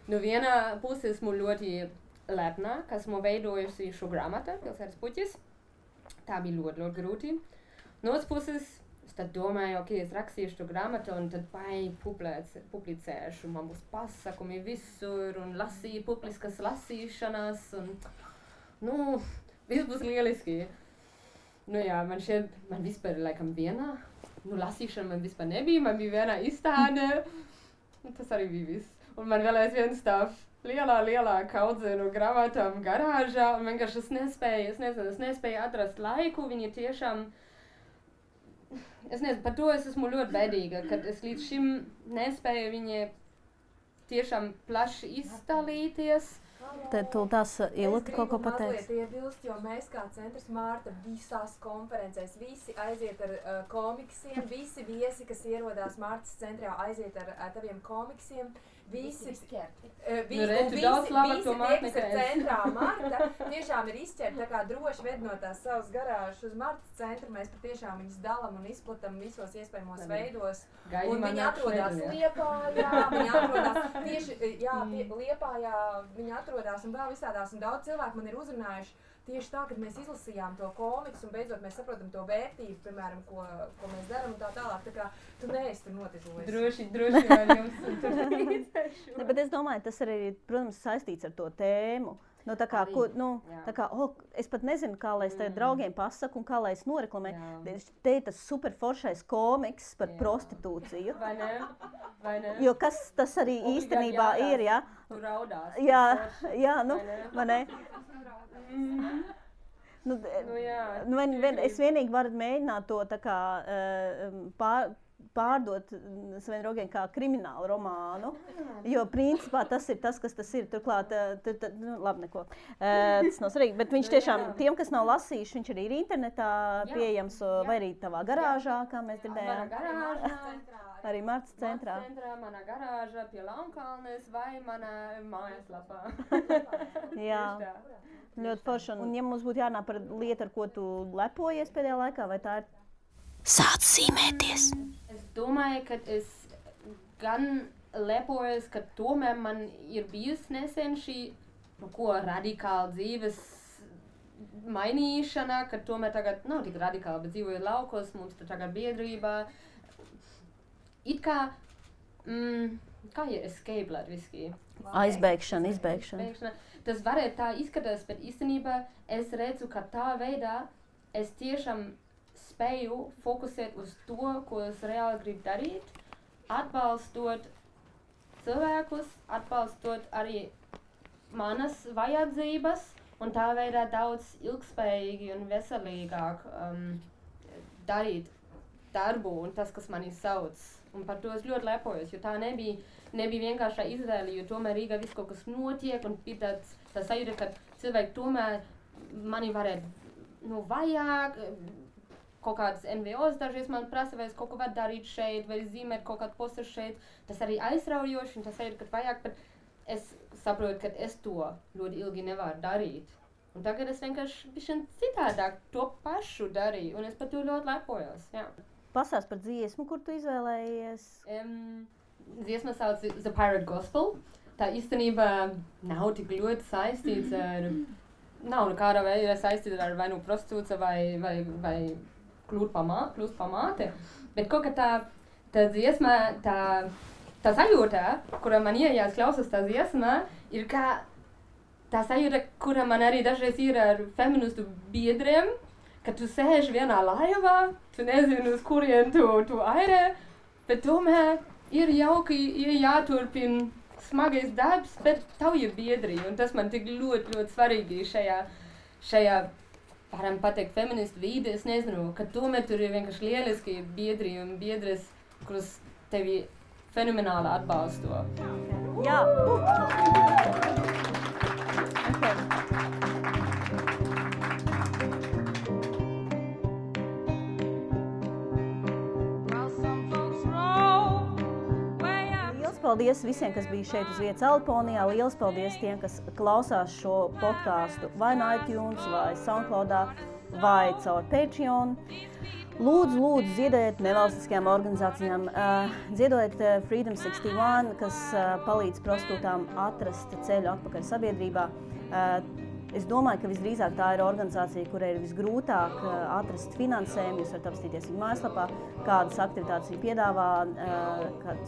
Nu vienā pusē esmu ļoti lepna, ka esmu veidojusi šo grāmatu, Pilsētas puķis. Tā bija ļoti, ļoti grūti. No otras puses, es tad domāju, ok, es rakstīšu šo grāmatu un tad publicēšu. Man būs pasakumi visur un publiskas lasīšanas un, viss būs lieliski. Man vispār laikam vienā, lasīšana man vispār nebija, man bija vienā izstāde. Tas arī bija viss. Un man vēl aizvien stāv lielā kaudzenu grāmatām garāžā, un vienkārši es nespēju atrast laiku, viņi tiešām, par to es esmu ļoti bēdīga, kad es līdz šim nespēju viņi tiešām plaši izdalīties. Tad tu tās Ilta kaut ko pateiks. Es gribu mazliet iebilst, jo mēs kā centrs Mārta visās konferencēs, visi aiziet ar komiksiem, visi viesi, kas ierodās Mārtas centrā, aiziet ar taviem komiksiem. Visi tie, kas ir centrā Marta, tiešām ir izķerti, tā kā droši ved no tās savas garāžas uz Martas centru, mēs patiešām viņus dalam un izplatam visos iespējamos veidos. Un viņi atrodas Liepājā, viņi atrodas tieši, Liepājā, viņi atrodas un vēl visādās, un daudz cilvēku man ir uzrunājuši tieši tā, kad mēs izlasījām to komiksu un beidzot mēs saprotam to vērtību, piemēram, ko mēs darām un tā tālāk, tā kā tu neesi tur notižojis. Droši man jums tur līdzēšu. Bet es domāju, tas arī, protams, saistīts ar to tēmu. Tā kā, es pat nezinu, kā lai es tev draugiem pasaku un kā lai es noreklamēju. Te ir tas superforšais komiks par prostitūciju. Vai ne? Jo kas tas arī īstenībā ir, ja? Tu raudās. Vai ne? Es vienīgi varu mēģināt to tā kā pārdot saviem draugiem kā kriminālu romānu, jo principā tas ir tas, kas tas ir. Turklāt, labi, neko. Tas nav svarīgi, bet viņš tiešām, tiem, kas nav lasījuši, viņš arī ir internetā pieejams, vai arī tavā garāžā, kā mēs dzirdējām. Manā garāžā. Arī Martas centrā. Manā garāžā pie Launkalnes vai manā mājaslapā. Jā, ļoti forši. Un ja mums būtu jārunā par lietu, ar ko tu lepojies pēdējā laikā, vai tā ir? Sāc zīmēties. Es domāju, ka es gan lepojos, ka tomēr man ir bijusi nesen šī radikāla dzīves mainīšana, ka tomēr tagad nav tik radikāla, bet dzīvoju laukos, mums tur tagad biedrībā. It kā, kā ir escape latviski? Izbēgšana. Tas varētu tā izskatās, bet īstenībā es redzu, ka tā veidā es tiešām spēju fokusēt uz to, ko es reāli gribu darīt, atbalstot cilvēkus, atbalstot arī manas vajadzības un tā veidā daudz ilgspējīgi un veselīgāk darīt darbu un tas, kas mani sauc. Un par to es ļoti lepojos, jo tā nebija vienkāršā izvēle, jo tomēr Rīgā viss kaut kas notiek un ir tā sajūta, ka cilvēki tomēr mani varētu vajag, kaut kādas NVOs dažreiz man prasa, vai es kaut ko varu darīt šeit, vai zīmēt kaut kādu postu šeit. Tas arī aizraujoši un tas sajūta, ka vajag, bet es saprotu, ka es to ļoti ilgi nevaru darīt. Un tagad es vienkārši bišķiņ citādāk to pašu darīju un es par to ļoti lepojos, jā. Pasāst par dziesmu, kur tu izvēlējies? Dziesma sauc The Pirate Gospel. Tā īstenībā nav tik ļoti saistīts ar, nav nekādā veidā saistīts ar vai nu prostitūcija vai kļūt pa māte. Bet kaut kā tā dziesma, tā sajūta, kura man iejās klausās tā dziesma, ir kā tā sajūta, kura man arī dažreiz ir ar feministu biedriem, ka tu sēži vienā laivā, tu nezini, uz kurien tu airē, bet tomēr ir jauki, ir jāturpina smagais darbs, bet tavu ir biedri, un tas man tik ļoti, ļoti svarīgi šajā, varam pateikt, feministu vīde, es nezinu, ka tomēr tur ir vienkārši lieliski biedri un biedres, kurus tevi fenomenāli atbalsto. Jā! Paldies visiem, kas bija šeit uz vietas Alponijā. Liels paldies tiem, kas klausās šo podcastu vai no iTunes, vai Soundcloudā, vai caur Patreon. Lūdzu, ziedodiet nevalstiskajām organizācijām. Ziedodiet Freedom 61, kas palīdz prostitūtām atrast ceļu atpakaļ sabiedrībā. Es domāju, ka visdrīzāk tā ir organizācija, kurai ir visgrūtāk atrast finansējumu. Jūs varat apstīties viņu mājaslapā, kādas aktivitātes viņi piedāvā,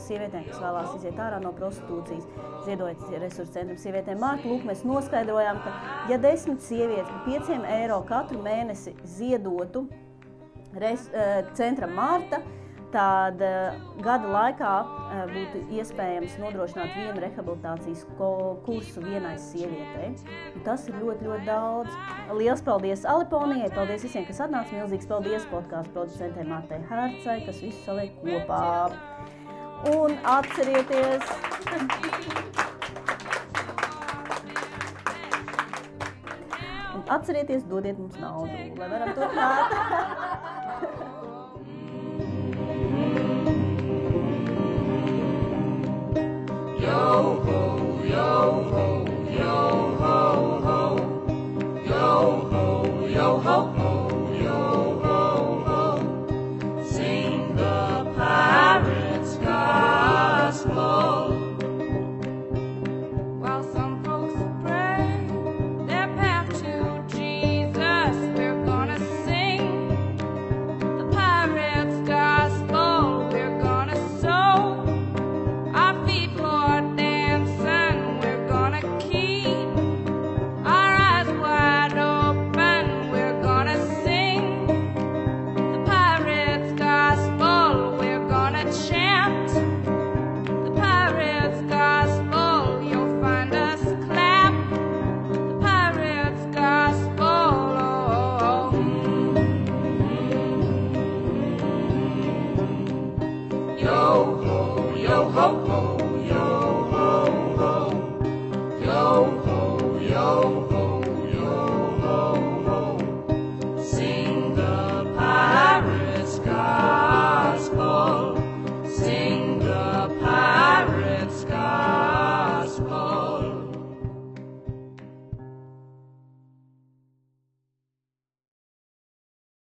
sievietēm, kas vēlās iziet ārā no prostitūcijas, ziedojot resursu centram sievietēm Marta. Lūk, mēs noskaidrojām, ka ja 10 sievietes par 5 eiro katru mēnesi ziedotu centram Marta, tad gada laikā būtu iespējams nodrošināt vienu rehabilitācijas kursu vienai sievietei. Un tas ir ļoti, ļoti daudz. Liels paldies Aliponijai, paldies visiem, kas atnāca. Milzīgs paldies podkāstu producentei Martai Hercai, kas visu saliek kopā. Un atcerieties... Atcerieties, dodiet mums naudu, lai varam turpināt. Yo ho, yo ho, yo ho ho, yo ho, yo ho ho, yo ho ho. Sing the pirate's gospel. While some folks pray their path to Jesus, we're gonna sing the pirate's gospel. We're gonna sow our feet for dancing. We're gonna keep our eyes wide open. We're gonna sing the pirate's gospel. We're gonna chant the pirate's gospel. You'll find us clap the pirate's gospel. Yo ho, yo ho.